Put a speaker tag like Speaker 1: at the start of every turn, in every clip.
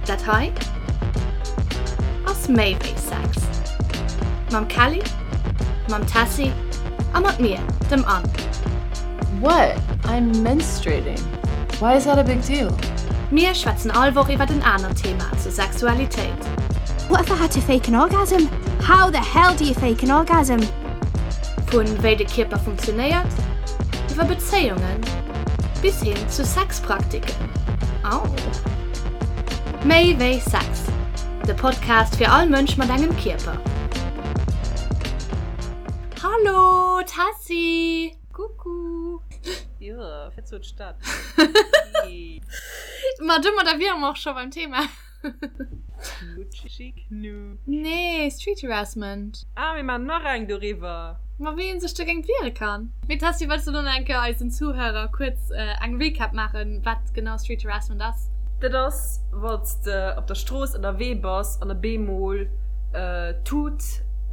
Speaker 1: Dat hei ass méi wéi Sex. Mam Kelly, mam Tessy a mat mir, dem Anne.
Speaker 2: What? I'm menstruating. Why is that a big deal?
Speaker 1: Mir schwätzen all Woch iwwert en anert Thema zur Sexualitéit.
Speaker 3: What if I had to fake an orgasm? How the hell do you fake an orgasm?
Speaker 1: Vu wéi de Kierper funktionéiert, iwwer Bezéiungen bis hin zu Sexpraktiken. Au! Méi wéi Sex, de Podcast fir all Mënsch mat engem Kierper. Hallo Tessy!
Speaker 2: Coucou! Jo, fir zu d'Stad.
Speaker 1: Ma domadder wiere mer och scho beim Thema.
Speaker 2: Knutschi Knu.
Speaker 1: Nee, Street Harassment.
Speaker 2: Ah, mir maachen nach eng doriwwer.
Speaker 1: Ma wéi een sech dogéint wiere kann. Mee Tessy, wëlls de lo nach eng Kéier eisen Zuhörer kuerz eng Recap maachen, wat genau Street Harassment ass?
Speaker 2: Dat ass, wann s de op der Strooss ënnerwee bass an op eemol tut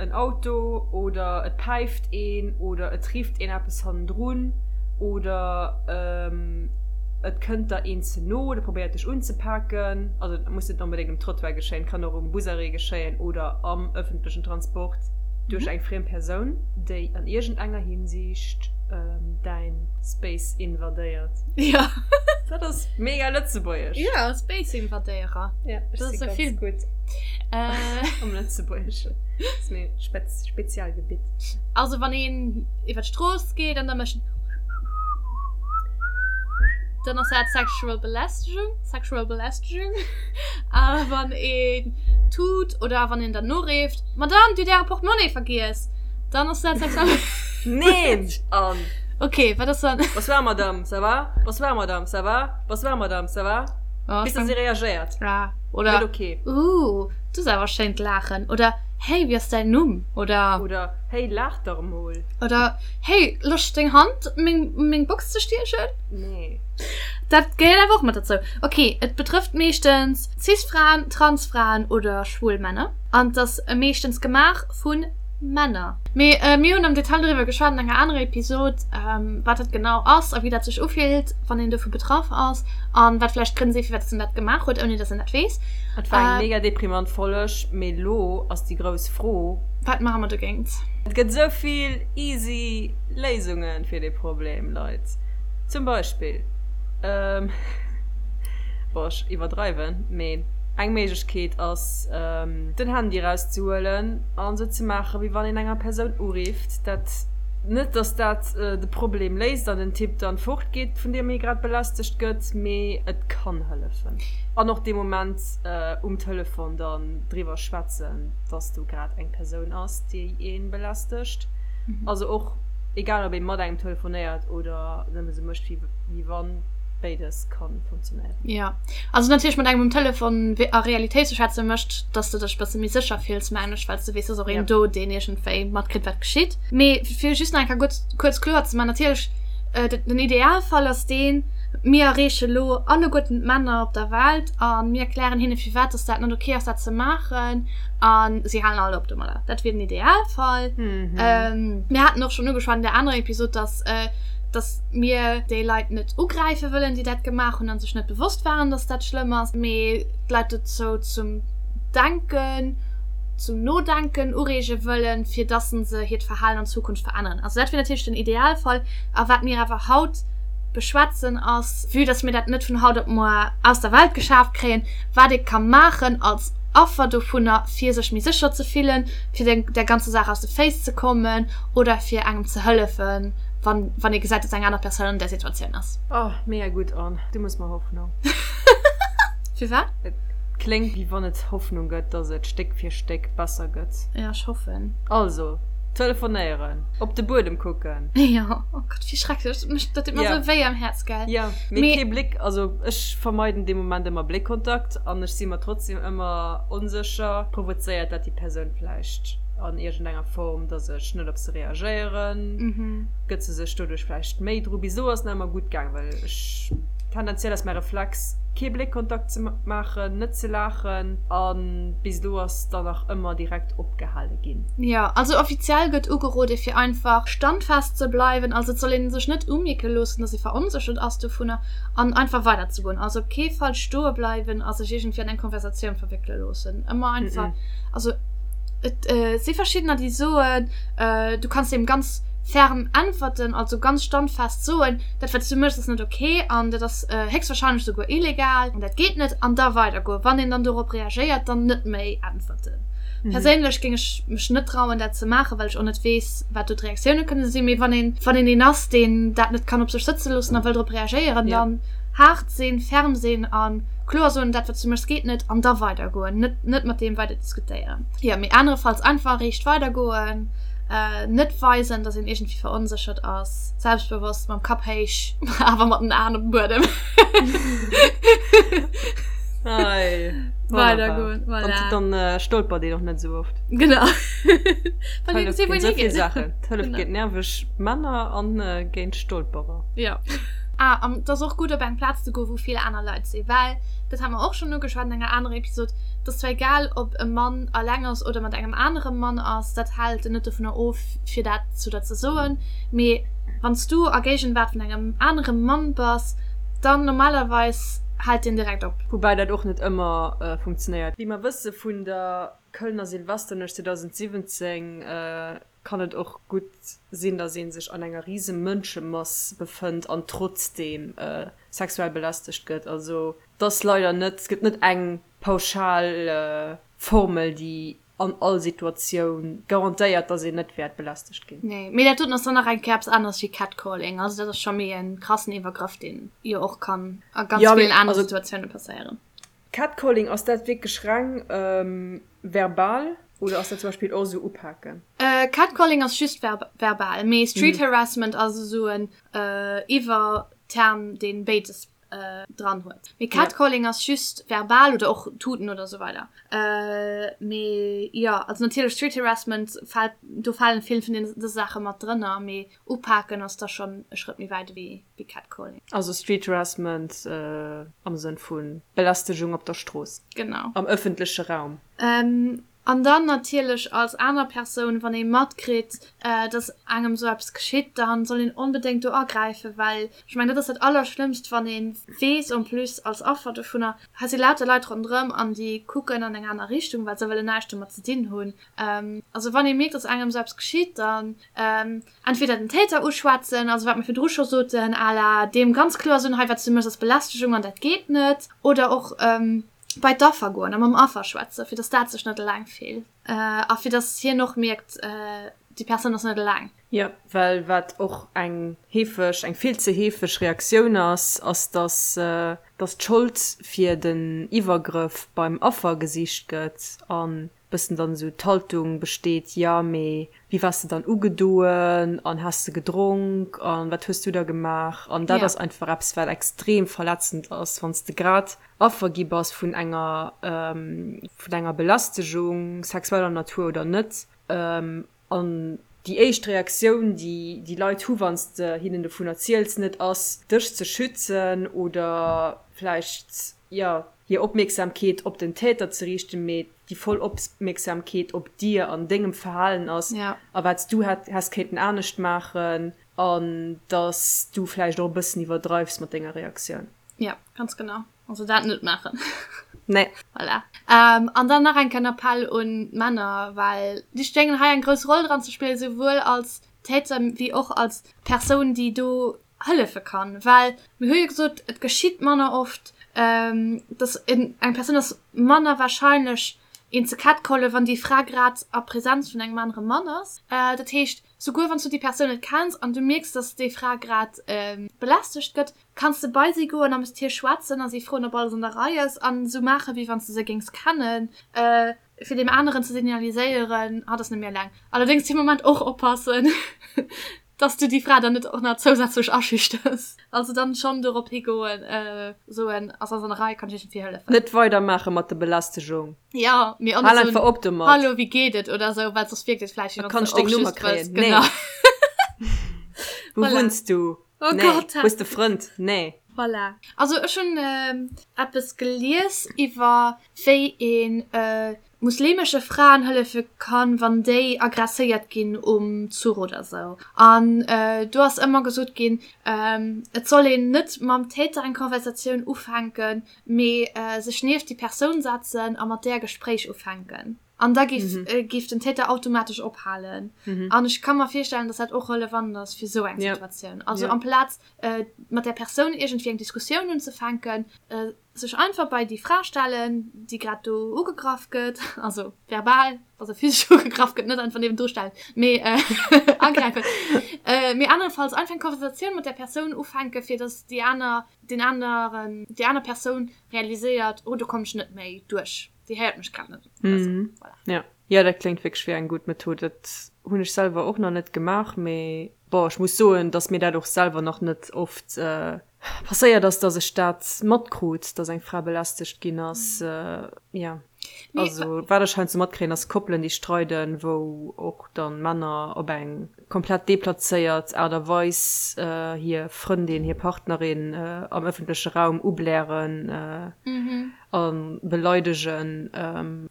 Speaker 2: en Auto oder et päift een oder et rifft een eppes hannendrun oder et kënnt der een ze no oder probéiert dech unzepaken. Also et muss net onbedéngt um Trottoir geschéien, kann och um Busarrêt geschéien oder am ëffentlechen Transport duerch eng friem Persoun, déi an iergendenger Hinsicht däin Space invadéiert.
Speaker 1: Jo.
Speaker 2: Dat ass mega lëtzebuergesch.
Speaker 1: Jo, Space invadéierer.
Speaker 2: Ja, ech si ganz gutt am Lëtzebuergeschen. Dat ass mäi Spezialgebitt.
Speaker 1: Also wann een iwwer d'Strooss geet an da mécht en. Dann ass dat sexual Belästegung, sexual Belästegung. A wann een tut oder wann een dann noreeft, Madame, Dir hutt Äre Portemonnaie vergiess, dann ass dat sexual.
Speaker 2: Neen! An.
Speaker 1: Okay, wat ass dann?
Speaker 2: Bonsoir Madame, ça va? Bonsoir Madame, ça va? Bonsoir Madame, ça va?
Speaker 1: Oh,
Speaker 2: Bis dass si reagéiert.
Speaker 1: Ah, oder.
Speaker 2: Net okay.
Speaker 1: Ooh, du hues awer schéint Laachen. Oder Hey, wéi ass däin Numm? Oder.
Speaker 2: Oder Hey, laach dach emol.
Speaker 1: Oder Hey, Loscht deng Hand meng meng Box ze stiechen?
Speaker 2: Nee.
Speaker 1: Dat gehéiert awer och mat dozou. Ok, et betrëfft meeschtens Cis-Fraen, Trans-Fraen oder schwul Männer. An et ass meeschtens gemaach vu Männer. Mee mir hunn am Detail doriwwer geschwat an enger anerer Episod, wat dat genau ass a wéi dat sech ufillt, wann een dovu betraff ass an wat vläicht d'Grënn sinn, firwat dass een dat gemaach huet, ouni dass een dat weess.
Speaker 2: Et war eng mega deprimant Folg, mee lo ass déi grouss Fro.
Speaker 1: Wat maache mer dogéint?
Speaker 2: Et gëtt esou vill easy Léisunge fir dee Problem, Leit. Zum Beispill, bon ech iwwerdreiwen, mee eng Méiglechkeet ass den Handy erauszehuelen an esou ze maachen, wéi wann een enger Persoun urifft. Dat, net dass dat de Problem léist an den Typ dann fortgeet, vun deem ee grad belästegt gëtt, mee et kann hëllefen. An och dee Moment um Telefon dann driwwer schwätzen, dass do grad eng Persoun ass, déi ee belästegt. Also och egal ob ee mat engem telefonéiert oder nëmme sou mécht wéi wann, béides ka funktionéieren.
Speaker 1: Jo, also natierlech mat engem um Telefon a Realitéit ze schwätzen mécht, dass de dech e bësse méi sécher fills, mengen ech, well s de weess, et ass och een do, deen iergendwéi matkritt, wat geschitt. Mee fir just nach eng Kéier gutt kuerz kloer ze maachen, natierlech, den Idealfall ass deen, mir erreeche lo alleguerten d'Männer op der Welt a mir erklären hinne firwat dass dat net ok ass dat ze maachen a si halen all op domadder. Dat wier den Idealfall. Mir haten och schonn ugeschwat an där anerer Episod, dass dass mir déi Leit net ugräife wëllen, déi dat gemaach hunn a sech net bewosst waren, dass dat schlëmm ass, mee d'Leit dozou zum Denken, zum Nodenken ureege wëllen, fir dass se hiert Verhalen an Zukunft veränneren. Also dat wier natierlech den Idealfall. A wat mir awer haut beschwätzen ass, vue dass mir dat net vun haut op muer aus der Welt geschaaft kréien, wat ee ka maachen als Affer dovunner, fir sech méi sécher ze fillen, fir der ganzer Saach aus de Féiss ze kommen oder fir engem ze hëllefen, wann, wann ee gesäit, dass eng aner Persoun an där Situatioun ass.
Speaker 2: Oh, mega gutt, Anne. Du mëss mer Hoffnung.
Speaker 1: Firwat?
Speaker 2: Et kléngt, wéi wann et Hoffnung gëtt, dass et Stéck fir Stéck besser gëtt.
Speaker 1: Jo, ech hoffen.
Speaker 2: Also, telefonéieren, op de Buedem kucken.
Speaker 1: Jo, oh Gott, wéi schrecklech. Dat mécht, dat deet mer
Speaker 2: Ja.
Speaker 1: esou wéi am Häerz, gell?
Speaker 2: Jo, mee kee Bléck, also ech vermeiden dee Moment ëmmer Bléckkontakt an ech si mer trotzdem ëmmer onsécher, provozéiert dat déi Persoun vläicht an iergendenger Form, dass ech net op se reagéieren? Gëtt se sech doduerch vläicht méi dru? Bis elo ass et nach ëmmer gutt gaang, well ech tendenziell ass mäi Reflex. Kee Bléckkontakt ze maachen, net ze laachen a bis elo ass dann nach ëmmer direkt opgehale ginn.
Speaker 1: Jo, also offiziell gëtt ugerode fir einfach standfest ze bleiwen, also et soll ee sech net umierke loossen, dass ee veronséchert ass dovunner an einfach weider ze goen. Also op kee Fall stoe bleiwen a sech iergendwéi an eng Konversatioun verwéckele loossen. Ëmmer einfach, also et si verschiddener déi soen, du kanns deem ganz ferm äntwerten, also ganz standfest soen, dat wat s du méchs ass net ok an dat ass héchstwahrscheinlech souguer illegal an dat geet net an da weidergoen. Wann een dann dorop reagéiert, dann net méi äntwerten. Perséinlech géing ech mech net trauen dat ze maachen, well ech och net weess wat do d'Reaktioune kënne sinn. Mee wann een wann een een ass deen dat net kann op sech sëtze loossen a wëll drop reagéieren, dann haart sinn, ferm sinn a kloer soen, dat wat s du méchs geet net an da weidergoen, net net mat deem weider diskutéieren. Jo, mee anerefalls einfach riicht weidergoen. Net weisen, dass een iergendwéi veronséchert ass. Selbstbewosst, mam Kapp héich, awer mat den Aen op dem Buedem.
Speaker 2: Ei,
Speaker 1: Weidergoen, voilà.
Speaker 2: Dann, dann stolpert een och net esou oft.
Speaker 1: Genau.
Speaker 2: Well een gesinn, wou een higeet. Saachen. D'Hëllef géint nerveg Männer an géint Stolperer.
Speaker 1: Jo. Ah, an et ass och gutt, op eng Plaz ze goen, wou vill aner Leit sinn, well, dat hate mer och schonn ugeschwat an enger anerer Episod, et ass zwar egal, ob e Mann alleng ass oder mat engem anere Mann ass, dat hält en net dovunner of, fir dat zu der ze soen, mee wann s du a Géigenwaart vun engem anere Mann bass, dann normalerweis hält deen direkt op.
Speaker 2: Woubäi dat och net ëmmer funktionéiert. Wéi mer wësse vun der Kölner Silvesternuecht 2017, kann et och gutt sinn, datt ee sech an enger rise Mënschemass befënnt an trotzdeem sexuell belästegt gëtt. Also et ass leider net, et gëtt net eng pauschal Formel, déi an all Situatioun garantéiert, datt een net wäert belästegt ginn.
Speaker 1: Nee, mee dat doten ass dann nach eng Kéier eppes aneres wéi Catcalling. Also dat ass scho méi e krassen Iwwergrëff, deen jo och kann a ganz villen anere Situatioune passéieren.
Speaker 2: Catcalling, ass dat wierklech reng verbal oder ass dat zum Beispill och esou upaken?
Speaker 1: Catcalling ass just verbal, mee Street Harassment ass esou en Iwwerterm, dee béides dran huet. Mee Catcalling ass just verbal oder och tuten oder esou weider. Mee jo, also natierlech Street Harassment fält, do falen vill vun deene Saache mat drënner, mee upaken ass da schonn e Schrëtt méi wäit ewéi. wéi Catcalling.
Speaker 2: Also Street Harassment am Sënn vu Belästegung op der Strooss.
Speaker 1: Genau.
Speaker 2: Am ëffentleche Raum.
Speaker 1: An dann natierlech als aner Persoun, wann ee matkritt, dass engem esou eppes geschitt, da soll een onbedéngt do agräifen, well ech mengen, dat ass dat Allerschlëmmst, wann ee weess en plus als Affer dovunner, hei si lauter Leit ronderëm an déi kucken an eng aner Richtung, well se wëllen näischt domat ze dinn hunn. Also wann ee mierkt, dass engem esou eppes geschitt, dann Entweder den Täter uschwätzen, also wat mir virdru scho soten, à la deem ganz kloer soen, hei wat s du méchs ass Belästegung an dat geet net, oder och bei d'Affer goen a mam Affer schwätzen, fir datt dat sech net eleng fillt a fir datt hien och mierkt, déi Persoun ass net eleng.
Speaker 2: Jo, well wat och eng heefeg, eng vill ze heefeg Reaktioun ass, ass datt datt d'Schold fir den Iwwergrëff beim Affer gesicht gëtt an bëssen dann esou d'Haltung besteet, jo mee wéi waars de dann ugedoen an has de gedronk an wat hues du da gemaach? An dat ass einfach eppes wat extrem verletzend ass, wann s de grad Affer gi bass vun enger vun enger Belästegung, sexueller Natur oder net, an déi éischt Reaktioun déi déi Leit hu wann s de hinnen dovun erziels net ass dech ze schützen oder vläicht jo hir Opmierksamkeet op den Täter ze riichten, mee déi voll Opmierksamkeet op dir an dengem Verhalen ass a wat s du häss kéinten anescht maachen an dass du vläicht och e bëssen iwwerdreifs mat denger Reaktioun.
Speaker 1: Jo, ganz genau. Also dat net maachen.
Speaker 2: Nee.
Speaker 1: Voilà. An dann nach eng Kéier en Appell un d'Männer, well déi schéngen hei eng grouss Roll dran ze spillen, souwuel als Täter wéi och als Persoun, déi do hëllefe kann, well mir hu jo gesot, et geschitt manner oft, dass eng Persoun ass manner wahrscheinlech een ze catcallen, wann déi Fra grad a Präsenz vun engem anere Mann ass. Dat heescht, souguer wann s du déi Persoun net kenns an du mierks, dass déi Fra grad belästegt gëtt, kanns de bei si goen a mat hir schwätzen a si froen, ob alles an der Rei ass an esou maachen, wéi wann s de se géings kennen. Fir deem aneren ze signaliséieren, hatt ass net méi eleng. Allerdéngs dee Moment och oppassen, dass du déi Fra dann net och nach zousätzlech aschüchters. Also dann schonn dorop higoen, soen, ass alles an der Rei, kann ech iergendwéi hëllefen?
Speaker 2: Net weidermaache mat der Belästegung.
Speaker 1: Jo, mee och
Speaker 2: net soen, einfach op domat.
Speaker 1: Hallo, wéi geet et oder esou, well soss wierkt et vläicht, wéi
Speaker 2: wann s du och just wëlls. Genau. Wou wunns du?
Speaker 1: Oh Gott.
Speaker 2: Hues de Frënd? Nee.
Speaker 1: Voilà. Also ech hunn eppes gelies iwwer wéi een muslimesche Fraen hëllefe kann, wann déi aggresséiert ginn um Zuch oder sou. An do ass ëmmer gesot ginn, et soll een net mam Täter eng Konversatioun ufänken, mee sech nieft déi Persoun setzen a mat där e Gespréich ufänken. An da géif géif den Täter automatesch ophalen. An ech ka mer virstellen, datt dat och relevant ass fir sou eng Situatioun. Also amplaz mat där Persoun iergendwéi eng Diskussioun unzefänken, sech einfach bei déi Fra stellen, déi grad do ugegraff gëtt, also verbal, also physesch ugegraff gëtt, net einfach niewendru stellen, mee agräifen, mee anerefalls einfach eng Konversatioun mat där Persoun ufänken, fir dass déi aner, deen aneren, déi aner Persoun realiséiert, oh do kommen ech net méi duerch, déi héiert mech grad net oder sou.
Speaker 2: Voilà. Ja, ja, dat kléngt wierklech wéi eng gutt Method. Dat hunn ech selwer och nach net gemaach, mee bon, ech muss soen, dass mir dat och selwer nach net oft Passéiert ass, dass ech dat matkrut, dass eng Fra belästegt ginn ass. Jo, also wat ech heiansdo matkréien, ass Koppelen, déi streiden, wou och dann Männer op eng komplett deplazéiert Aart a Weis hir Frëndin, hir Partnerin am ëffentleche Raum ublären a beleidegen,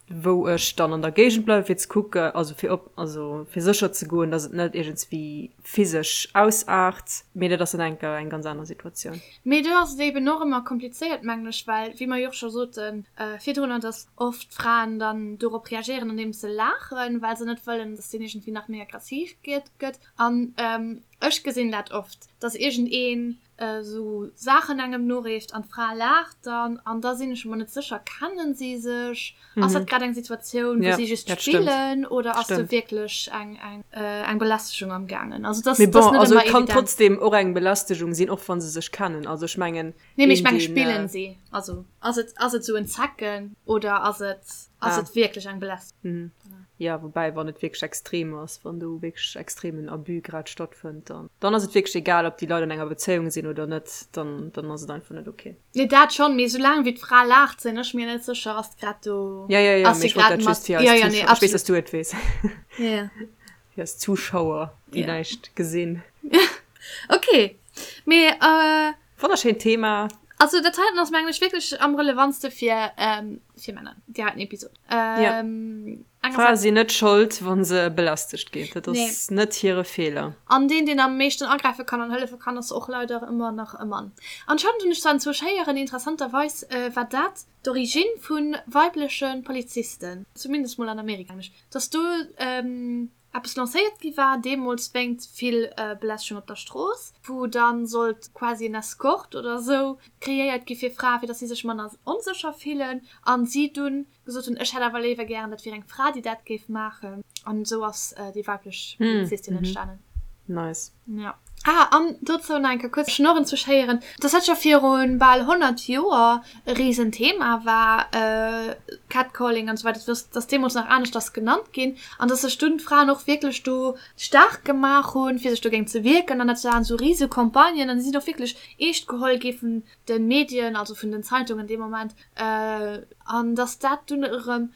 Speaker 2: wou ech dann an der Géigend bleiwe fir ze kucken, also fir op, also fir sécher ze goen, dass et net iergendswéi physesch ausaart, mee dat ass dann enker eng ganz aner Situatioun.
Speaker 1: Mee do ass et eben och ëmmer komplizéiert, mengen ech, well, wéi mer jo och scho sote virdrunner, dass oft d'Fraen dann dorop reagéieren, andeems se laachen, well se net wëllen, dass deen iergendwéi nach méi aggressiv gëtt. An ech gesinn dat oft, dass iergendeen esou Saachen engem noreeft an d'Fra laacht dann an da sinn ech mer net sécher, kennen si sech? Ass dat grad eng Situatioun, wou si just spillen oder ass do wierklech eng eng Belästegung am gaangen?
Speaker 2: Also dat ass net ëmmer evident. Et kann trotzdem och eng Belästegung sinn, och wa se sech kennen. Also ech mengen.
Speaker 1: Nee, mee ech menge spillen si? Also ass et ass et esou en Zecken oder ass et ass et wierklech eng Belästegung?
Speaker 2: Jo, woubäi wann et wierklech extrem ass, wann do wierklech extremen Abus grad stattfënnt, dann dann ass et wierklech egal, ob déi Leit an enger Bezéiung sinn oder net, dann dann ass et einfach net ok.
Speaker 1: Nee, dat schonn, mee soulaang wéi d'Fra laacht, sinn ech mir net sécher, ass grad do.
Speaker 2: Ja, ja, ja, mee ech wollt dat just fir eis Zuschauer, ech weess, dass du et weess. Ja. Fir eis Zuschauer, déi näischt gesinn.
Speaker 1: Ok, mee.
Speaker 2: Wonnerschéint Thema.
Speaker 1: Also dat heiten ass mengen ech wierklech am relevantste fir fir Männer, déi heiten Episod.
Speaker 2: Ja. Frae sinn net Schold, wa se belästegt ginn. Dat ass net hire Feeler.
Speaker 1: An deen, deen am meeschten agräife kann an hëllefe kann, ass och leider ëmmer nach e Mann. Anscheinend hunn ech zwar enzwousch héieren, interessanterweis war dat d'Origine vu weibleche Polizisten, zumindest mol an Amerika, mengen ech, dass do eppes lancéiert gi war, deemools wéingt vill Belästegung op der Strooss, wou dann sollt quasi en Escort oder esou kreéiert gi fir Frae, fir dass si sech manner onsécher fillen an si dunn gesot hunn, ech hätt awer léiwer gären, dat wier eng Fra, déi dat géif maachen. An esou ass déi weiblech Polizistin entstanen.
Speaker 2: Nice.
Speaker 1: Ja. Ah, an dozou nach eng Kéier kuerz Schnorren ze schéieren, dass dat scho viru bal 100 Joer e Risenthema war, Catcalling an esou weider, dass dass deemools nach aneschters genannt ginn an dass sech dunn d'Fraen och wierklech do staark gemaach hunn, fir sech dogéint ze wierken. An dat waren esou rise Campagnen an déi sinn och wierklech eescht geholl gi vun de Medien, also vun den Zeitungen dee Moment, an dass dat dunn erëm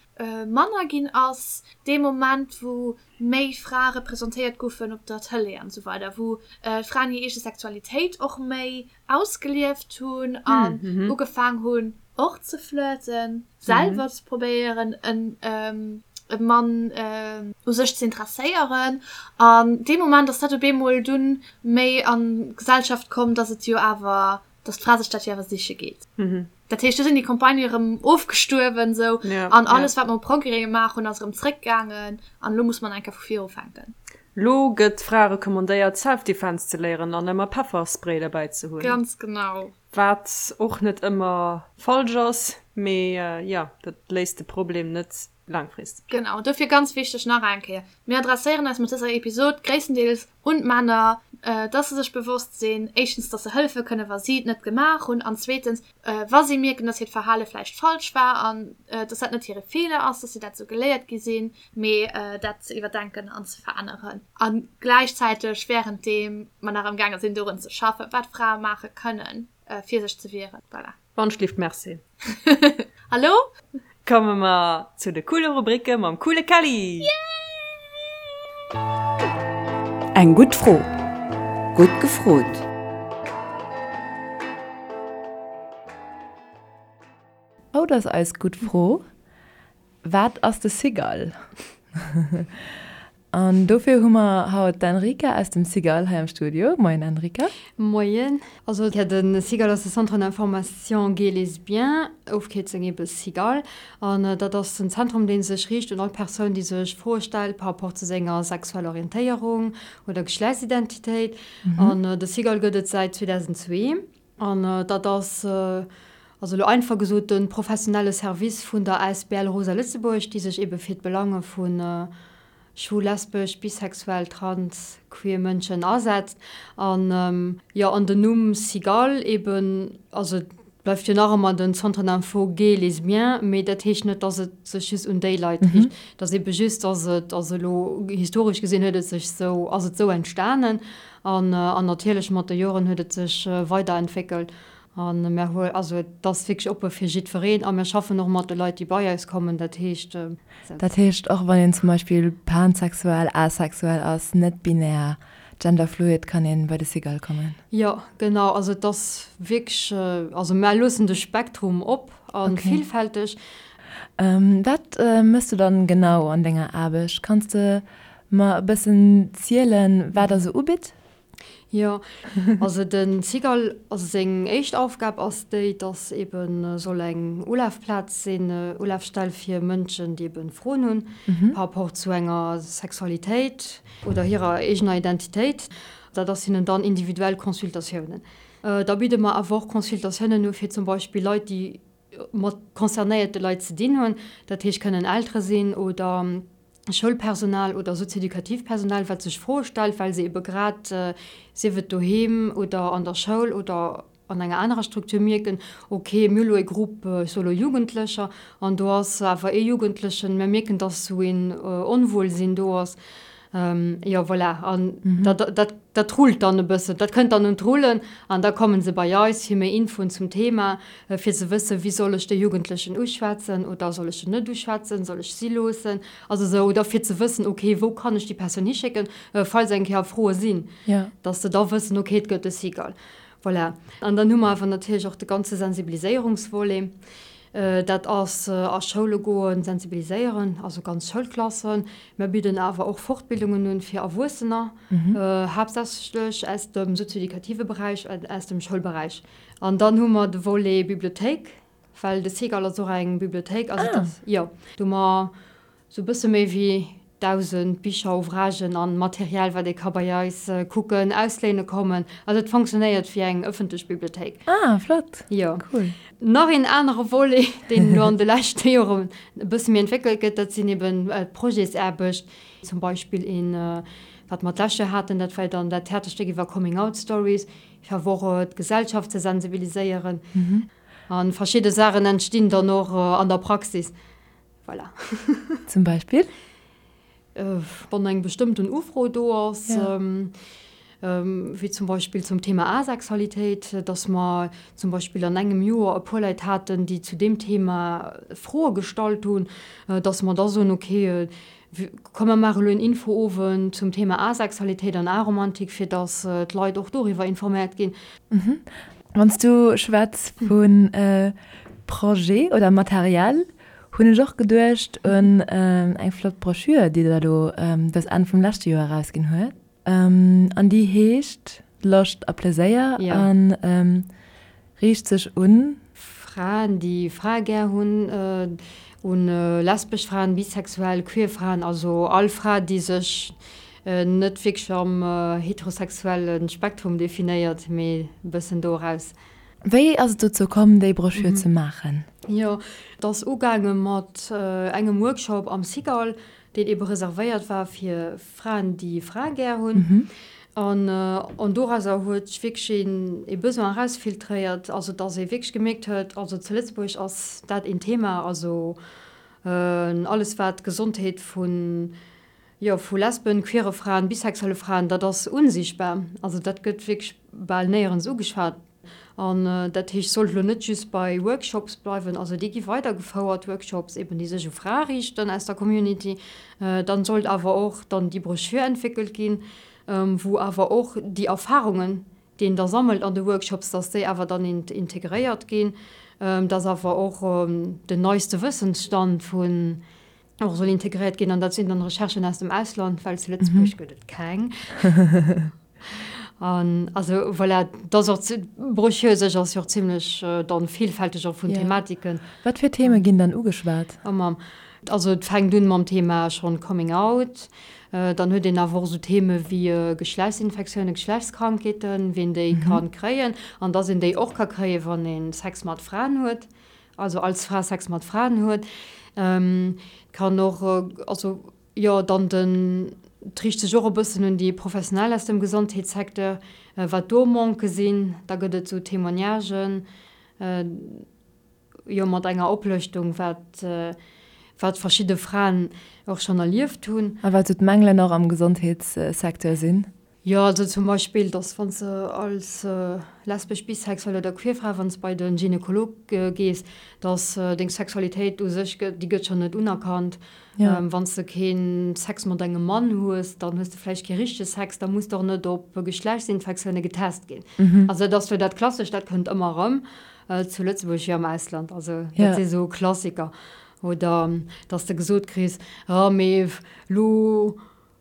Speaker 1: manner ginn ass, dee Moment wou méi Frae representéiert goufen op der Tëlee an esou weider, wou d'Fraen hir eege Sexualitéit och méi ausgelieft hunn an ugefaang hunn och ze flirten, selwer ze probéieren e Mann u sech ze interesséieren. An dee Moment ass dat op eemol dunn méi an d'Gesellschaft komm, dass et jo awer dass d'Fra sech dat jo awer siche geet. Dat heescht, do sinn déi Campagnë erëm ofgestuerwen esou an alles, wat mer u Progrès gemaach hunn, ass erëm zréckgaangen an elo muss mer nach eng Kéier vu vir ufänken.
Speaker 2: Lo gëtt Frae recommandéiert, Self-Defense ze léieren an ëmmer Pefferspray derbäi ze hunn.
Speaker 1: Ganz genau.
Speaker 2: Wat och net ëmmer falsch ass, mee jo, dat léist de Problem net laangfristeg.
Speaker 1: Genau, dofir ganz wichteg nach eng Kéier, Mir adresséieren eis mat dëser Episod gréisstendeels un d'Männer, dass se sech bewosst sinn, éischtens, dass se hëllefe kënnen, wa si et net gemaach hunn, an zweetens, wa si mierken, dass hiert Verhale vläicht falsch war an dass dat net hire Feeler ass, dass si dat esou geléiert gi sinn, mee dat ze iwwerdenken an ze veränneren. A gläichzäiteg, wärenddeem mer nach amgaange sinn, dorun ze schaffen, wat Frae maache kënnen, fir sech ze wieren. Voilà.
Speaker 2: Wandschlift merci.
Speaker 1: Hallo?
Speaker 2: Komme mer zu de coole Rubricke mam coole Kelly!
Speaker 4: Eng gutt Fro, gutt gefrot! Haut ass eis gutt Fro, Wat ass de Cigale? An dofir hu mer haut d'Enrica aus dem Cigale hei am Studio. Moien Enrica.
Speaker 5: Moien. Also jo, de Cigale ass de Centre d'information gay lesbien, Ofkierzung ebe Cigale. An dat ass en Zentrum, dee sech riicht un all Persoun, déi sech Froe stellt par rapport zu senger sexueller Orientéierung oder Geschlechtsidentitéit. An de Cigale gëtt et säit 2002. An dat ass, also elo einfach gesot, de professionelle Service vun der asbl Rosa Lëtzebuerg, déi sech ebe fir d'Belange vu schwul, lesbesch, bisexuell, trans, queer Mënschen asetzt. An jo, an den Numm Cigale eben, also et bleift jo nach ëmmer den Centre d'info gay lesbien, mee dat heescht net, dass et sech just un déi Leit riicht. Et ass ebe just, dass et, also elo historesch gesinn huet et sech esou, ass et esou entstanen. An natierlech mat de Joren huet et sech weiderentwéckelt. A mir hu, also et ass wierklech oppe fir jiddwereen a mir schaffen och mat de Leit, déi bei eis kommen. Dat heescht.
Speaker 4: Dat heescht, och wann een zum Beispill pansexuell, asexuell ass, net-binär, genderfluid, kann ee bei de Cigale kommen?
Speaker 5: Jo, genau. Also et ass wierklech, also mär loossen de Spektrum op a villfälteg.
Speaker 4: Wat méchs du dann genau an denger Aarbecht? Kanns de Mer e bëssen zielen, wat der sou ubitt?
Speaker 5: Jo, also de Cigale, also seng éischt Aufgab ass déi, dass ebe soll eng Ulafplaz sinn, Ulafstell fir Mënschen, déi ebe Froen hunn par rapport zu enger Sexualitéit oder hirer eegener Identitéit. Dat ass hinnen dann individuell Consultatiounen. Da bidde mer awer och Consultatiounen u fir zum Beispill Leit, déi mat concernéierte Leit ze dinn hunn, dat heescht kënnen Eltere sinn oder Schoulpersonal oder sozioeducativt Personal, wat sech Froe stellt, well se ebe grad, sief et doheem oder an der Schoul oder an enger anerer Struktur, mierken, ok, mir hu lo e Grupp, ech soe lo Jugendlecher, an do ass awer ee Jugendlechen, mir mierken, dass esou een Onwuelsinn do ass. Jo, voilà, an dat, dat, dat rullt dann e bëssen, dat kënnt dann un d'Rullen an da komme se bei eis fir méi Infoen zum Thema, fir ze wëssen, wéi soll ech de Jugendlechen uschwätzen oder soll ech en net uschwätzen, soll ech si loossen, also esou, oder fir ze wëssen, ok, wou kann ech déi Persoun hischécken, falls eng Kéier Froe sinn, dass se da wëssen, ok, et gëtt e Cigale. Voilà. An dann hu mer awer natierlech och de ganze Sensibiliséierungsvolet. Dat ass a Schoule goen, sensibiliséieren, also ganz Schoulklassen. Mir bidden awer och Fortbildungen un fir Erwuessener, haaptsächlech aus dem sozioeducative Beräich an aus dem Schoulberäich. An dann hu mer de Volet Bibliothéik, well de Cigale ass och eng Bibliothéik. Also dat, jo, do hu mer Sou bësse méi wéi 1.000 Bicher, Ouvragen an Material, wat ee ka bei eis kucken, ausléine kommen. Also et fonctionnéiert wéi eng ëffentlech Bibliothéik.
Speaker 4: Ah, flott!
Speaker 5: Jo.
Speaker 4: Cool.
Speaker 5: Nach een anere Volet, deen elo an de leschte Joren e bësse méi entwéckelt gëtt, dat sinn eben d'Projetsaarbecht. Zum Beispill een, wat mer d'lescht Joer haten, dat war dann dat Theaterstéck iwwer Coming Out Stories, fir awer och d'Gesellschaft ze sensibiliséieren. A verschidde Saachen entstinn dann och an der Praxis. Voilà.
Speaker 4: Zum Beispill?
Speaker 5: Wann eng bestëmmten Ufro do ass, wéi zum Beispill zum Thema Asexualitéit, dass mer zum Beispill an engem Joer e puer Leit haten, déi zu deem Thema Froe gestallt hunn, dass mer da soen, okay, komm mer maache elo en Infoowend zum Thema Asexualitéit an Aromantik, fir dass d'Leit och doriwwer informéiert ginn.
Speaker 4: Wann s du schwätz vu Projet oder Material, Hunn ech och geduecht un eng flott Broschür, déi der elo dës Enn vum leschte Joer erausginn huet. An déi heescht Loscht a Pleséier a riicht sech un.
Speaker 5: Fraen, déi Frae gär hunn, un lesbesch Fraen, bisexuell, queer Fraen, also all Fra, déi sech net wierklech am heterosexuelle Spektrum definéiert, mee e bëssen do eraus.
Speaker 4: Wéi ass et dozou komm, déi Broschür ze maachen?
Speaker 5: Jo, et ass ugaange mat engem Workshop am Cigale, deen ebe reservéiert war fir Fraen, déi Frae gär hunn. An dorauser huet sech wierklech een ee Besoin erausfiltréiert, also datt ee wierklech gemierkt huet, also zu Lëtzebuerg ass dat een Thema, also alles wat d'Gesondheet vun, jo, vu Lesben, queere Fraen, bisexuelle Fraen, dat ass unsichtbar. Also dat gëtt wierklech bal néierens ugeschwat. An dat heescht, sollt elo net just bei Workshops bleiwen, also déi gi weidergefouert, Workshops eben, déi sech u Frae riichten aus der Community. Dann sollt awer och dann déi Broschür entwéckelt ginn, wou awer och déi Erfahrungen, déi een da sammelt an de Workshops, dass déi awer dann integréiert ginn. Dass awer och den neiste Wëssensstand vun och soll integréiert ginn an dat sinn dann Recherchen aus dem Ausland, well zu Lëtzebuerg gëtt et keng. An also voilà, dat ass och d'Broschür u sech ass jo och zimlech dann vielfälteg och vun Thematiken.
Speaker 4: Wat fir Theme ginn dann ugeschwat?
Speaker 5: Also et fänkt un mam Thema schonn Coming Out, dann huet een awer och esou Theme wéi Geschlechtsinfektiounen, Geschlechtskrankheeten, wien déi ka kréien an dass een déi och ka kréien, wann ee Sex mat Fraen huet, also als Fra Sex mat Fraen huet. Et kann och, also jo, dann den, et riicht sech och e bëssen un déi Professionell aus dem Gesondheetssecteur, wat do Manquë sinn. Da gëtt et esou Témoignagen. Jo, mat enger Oplëschtung, wat, wat verschidde Fraen och schonn erlieft hunn.
Speaker 4: A wat sou d'Mängelen och am Gesondheetssecteur sinn.
Speaker 5: Jo, also zum Beispill, dass wann s de als lesbesch, bisexuell oder queer Fra, wann s bei de Gynekolog gees, dass deng Sexualitéit u sech, déi gëtt schonn net unerkannt. Wann s de kee Sex mat engem Mann hues, dann hues de vläicht kee richtege Sex, da muss de och net op Geschlechtsinfektioune getest ginn. Also dat ass jo dat Klassescht, dat kënnt ëmmer erëm. Zu Lëtzebuerg wéi am Ausland, also dat si sou Klassiker. Oder dass de gesot kriss, oh mee lo,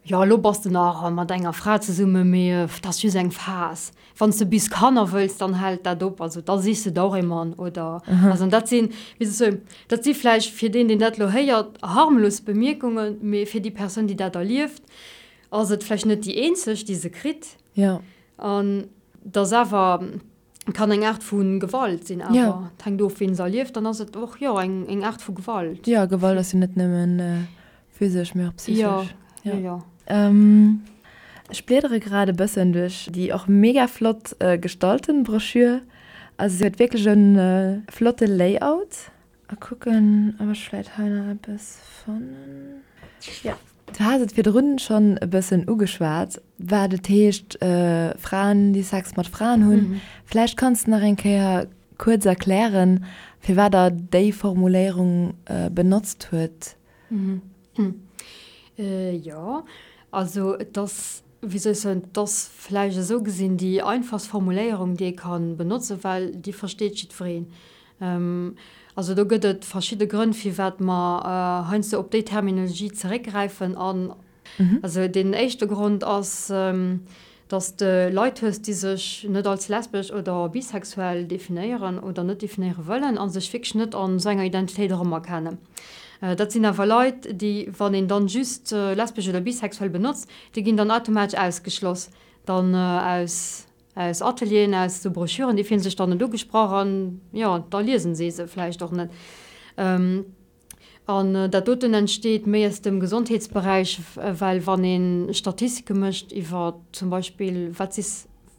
Speaker 5: jo lo bass de nach mat enger Fra zesummen, mee dat ass just eng Phas. Wann s de bis Kanner wëlls, dann hält dat op, also da sichs de der och ee Mann. Oder also an dat sinn, wéi soll ech soen, dat si vläicht fir deen, deen dat elo héiert, harmlos Bemierkungen, mee fir déi Persoun, déi dat erlieft, ass et vläicht net déi eenzeg, déi se kritt. An et ass awer. Kann eng Aart vu Gewalt sinn, awer ja. Et hänkt of, ween se erlieft, dann ass et och jo eng eng Aart vu Gewalt.
Speaker 4: Ja, Gewalt ass jo net nëmmen physesch, mee och psychesch.
Speaker 5: Ja, ja, ja.
Speaker 4: Ech bliedere grad e bëssen duerch déi och mega flott gestalten Broschür. Also se huet wierklech e flotte Layout. A kucken, ob ech vläit hei nach eppes fannen. Jo, du has et virdrun schonn e bëssen ugeschwat, wat et heescht, Fraen, déi Sex mat Fraen hunn. Vläicht kanns de nach eng Kéier kuerz erklären, firwat Der déi Formuléierung benotzt huet.
Speaker 5: Jo, also et ass, wéi soll ech soen, et ass vläicht esou gesinn déi einfachst Formuléierung, déi ee ka benotzen, well déi versteet jiddwereen. Also do gëtt et verschidde Grënn, firwat mer heiansdo op déi Terminologie zeréckgräifen. An also deen éischte Grond ass, dass de Leit hues, déi sech net als lesbesch oder bisexuell definéieren oder net definéiere wëllen a sech wierklech net an esou enger Identitéit erëmerkennen. Dat sinn awer Leit, déi, wann een dann just lesbesch oder bisexuell benotzt, déi ginn dann automatesch ausgeschloss dann aus Aus Atelieren, aus esou Broschüren, déi fillen sech dann net ugesprach an, jo, da liesen si se vläicht och net. An dat doten entsteet méi aus dem Gesondheetsberäich, well wann ee Statistike mécht iwwer zum Beispill, wat si,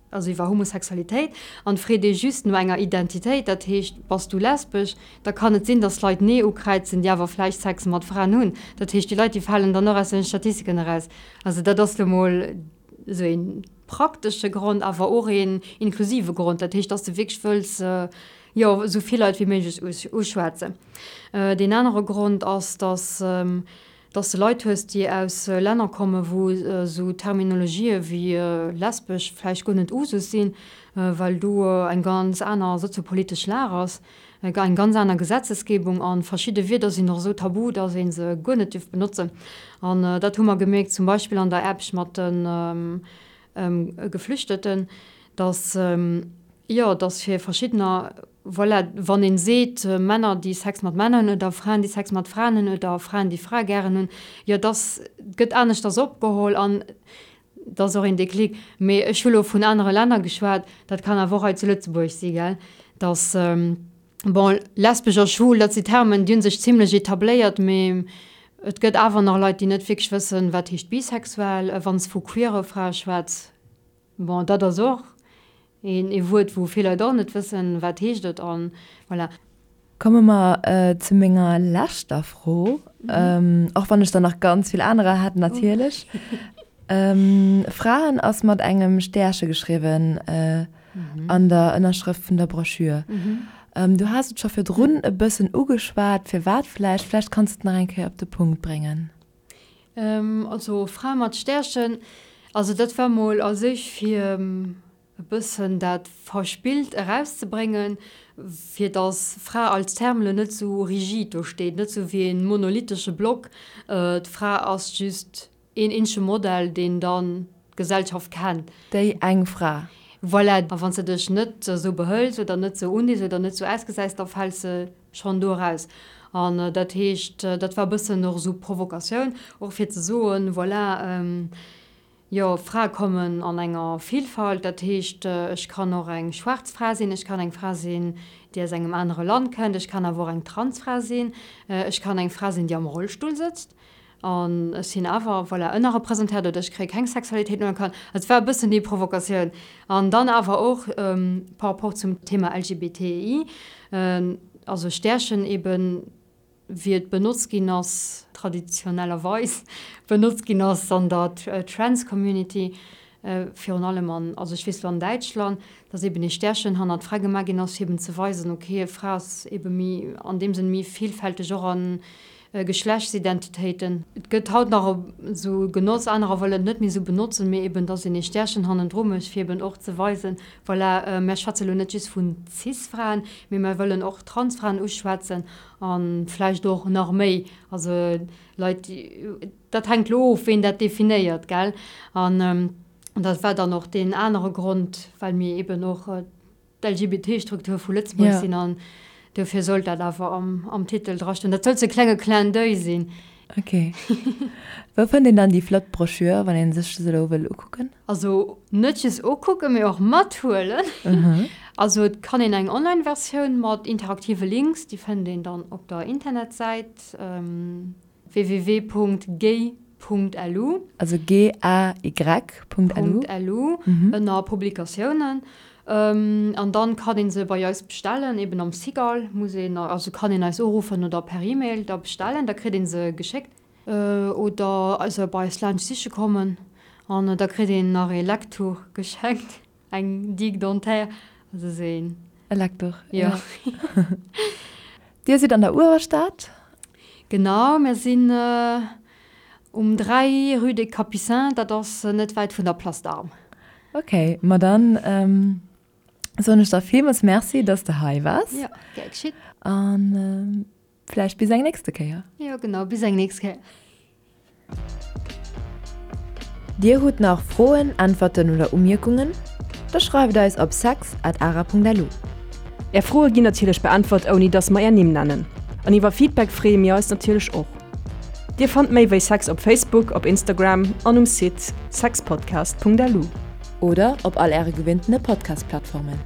Speaker 5: also iwwer Homosexualitéit, an freet ee just no enger Identitéit, dat heescht, bass du lesbesch, da kann et sinn, datt Leit Nee ukräizen, déi awer vläicht Sex mat Fraen hunn. Dat heescht, déi Leit, déi falen dann och aus den Statistiken eraus. Also dat ass lo mol esou een praktesche Grond, awer och een inklusive Grond, dat heescht, dass de wierklech wëlls, jo, esou vill Leit wéi méiglech uschwätzen. Deen anere Grond ass, dass, dass de Leit hues, déi aus Länner kommen, wou esou Terminologië wéi lesbesch vläicht guer net Usus sinn, well do eng ganz aner soziopolitesch Lag ass. Eng ganz aner Gesetzesgebung an verschidde Wierder sinn och esou tabu, dass ee se guer net dierf benotzen. An dat hu mer gemierkt zum Beispill an der Aarbecht mat de Geflüchteten, dass, jo, dass fir verschiddener, voilà, wann ee seet Männer, déi Sex mat Männer hunn oder Fraen, déi Sex mat Fraen hunn oder Fraen, déi Frae gären hunn, jo, dass gëtt aneschters opgeholl an Et ass och een Déclic. Mee ech hu lo vun anere Länner geschwat, dat kann awer och hei zu Lëtzebuerg si, gell, dass, bon, lesbesch a schwul, dat si Termen, déi hu sech zimlech etabléiert, mee et gëtt awer nach Leit, déi net wierklech wëssen, wat heescht bisexuell. Wann s de vu queere Frae schwätz, bon, dat ass och Een ee Wuert, wou vill Leit och net wëssen, wat heescht et an voilà.
Speaker 4: Komme mer zu menger leschter Fro, och wann ech der nach ganz vill anerer hätt natierlech. Fraen ass mat engem Stäerche geschriwwen an der Ënnerschrëft vun der Broschür. Du has et scho virdrun e bëssen ugeschwat, firwat vläicht. Vläicht kanns de et nach eng Kéier op de Punkt bréngen.
Speaker 5: Also Fra mat Stärchen, also dat war mol a sech fir e bëssen dat Verspillt erauszebréngen. fir dass Fra als Term elo net esou rigid do steet, net esou wéi e monolithesche Block, d'Fra ass just een eenzege Modell, deen dann d'Gesellschaft kennt.
Speaker 4: Déi eng Fra.
Speaker 5: Voilà, a wann s de dech net esou behëls oder net esou undees oder net esou ausgesäis, da fäls de schonn do eraus. An dat heescht, dat war e bëssen och esou Provokatioun, och fir ze soen, voilà, jo, Frae kommen an enger Vielfalt, dat heescht, ech kann och eng schwaarz Fra sinn, ech kann eng Fra sinn, déi aus engem anere Land kënnt, ech kann awer och eng Transfra sinn, ech kann eng Fra sinn, déi am Rollstull sëtzt. An ech sinn awer, voilà, ënnerrepresentéiert oder ech kréie keng Sexualitéit unerkannt. Et war e bëssen déi Provokatioun. An dann awer och par rapport zum Thema LGBTI, also Stärchen eben, wéi et benotzt ginn ass, traditionellerweis benotzt ginn ass an der Trans-Community, virun allem an, also ech weess elo an Däitschland, dass eben ee Stärchen hannert d'Fra gemaach ginn ass, fir eben ze weisen, okay, e Fra ass ebe méi, an deem Sënn méi villfälteg och an Geschlechtsidentitéiten. Et gëtt haut nach esou genotzt, anerer wëllen et net méi esou benotzen, mee eben, dass een ee Stärchen hannendru mécht, fir eben och ze weisen, voilà, mär schwätze lo net just vun Cis-Fraen, mee mär wëllen och Trans-Fraen uschwätzen a vläicht och nach méi, also Leit, déi, dat hänkt lo of, ween dat definéiert, gell. An dat war dann och deen anere Grond, well mir eben och d'LGBT-Struktur vu Lëtzebuerg sinn an dofir sollt dat awer am Titel drastoen. Dat sollt sou e klenge Clin d'oeil sinn.
Speaker 4: Ok. Wou fënnt een dann déi flott Broschür, wann ee sech se elo wëll ukucken?
Speaker 5: Also net just ukucken, mee och mathuelen. Also et kann een eng Online-Versioun mat interaktive Links, déi fënnt een dann op der Internetsäit. www.gay.lu.
Speaker 4: Also G-A-Y.lu.
Speaker 5: .lu ënner Publikatiounen. An dann kann een se bei eis bestellen, eben am Cigale muss een, also kann een eis uruffen oder per E-Mail da bestellen, da kritt een se geschéckt. Oder se bei eis laanscht siche kommen an da kritt een nach ee Lecktuch geschenkt. Eng Digue dentaire, also esou een.
Speaker 4: E Leckduch,
Speaker 5: jo.
Speaker 4: Dir sidd an der Uewerstad?
Speaker 5: Genau, mir sinn um 3, rue des Capucins, dat ass net wäit vun der Place d'Armes.
Speaker 4: Ok, ma dann soen ech der villmools Merci, dass de hei waars.
Speaker 5: Jo, gär geschitt.
Speaker 4: An Vläicht bis eng nächste Kéier.
Speaker 5: Jo genau, bis eng nächst Kéier.
Speaker 4: Dir hutt nach Froen, Äntwerten oder Umierkungen? Da schreift eis op sex at ara.lu.
Speaker 2: Är Froe ginn natierlech beäntwert ouni dass mer är Nimm nennen. An iwwer Feedback freeë mir eis natierlech och. Dir fannt méi wéi Sex op Facebook, op Instagram an um Site sexpodcast.lu.
Speaker 4: Oder op all äre gewinntene Podcast-Plattformen.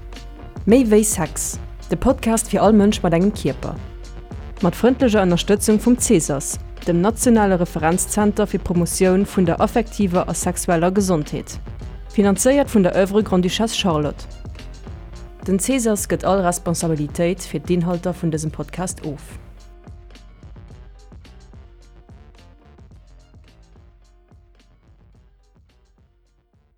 Speaker 2: Méi wéi Sex, de Podcast fir all Mënsch mat engem Kierper. Mat frëndlecher Ënnerstëtzung vum Cesas, dem nationale Referenzzenter fir d'Promotioun vun der affektiver a sexueller Gesondheet. Finanzéiert vun der Oeuvre Grande-Duchesse Charlotte. Den Cesas gëtt all Responsabilitéit fir d'Inhalter vun dësem Podcast of.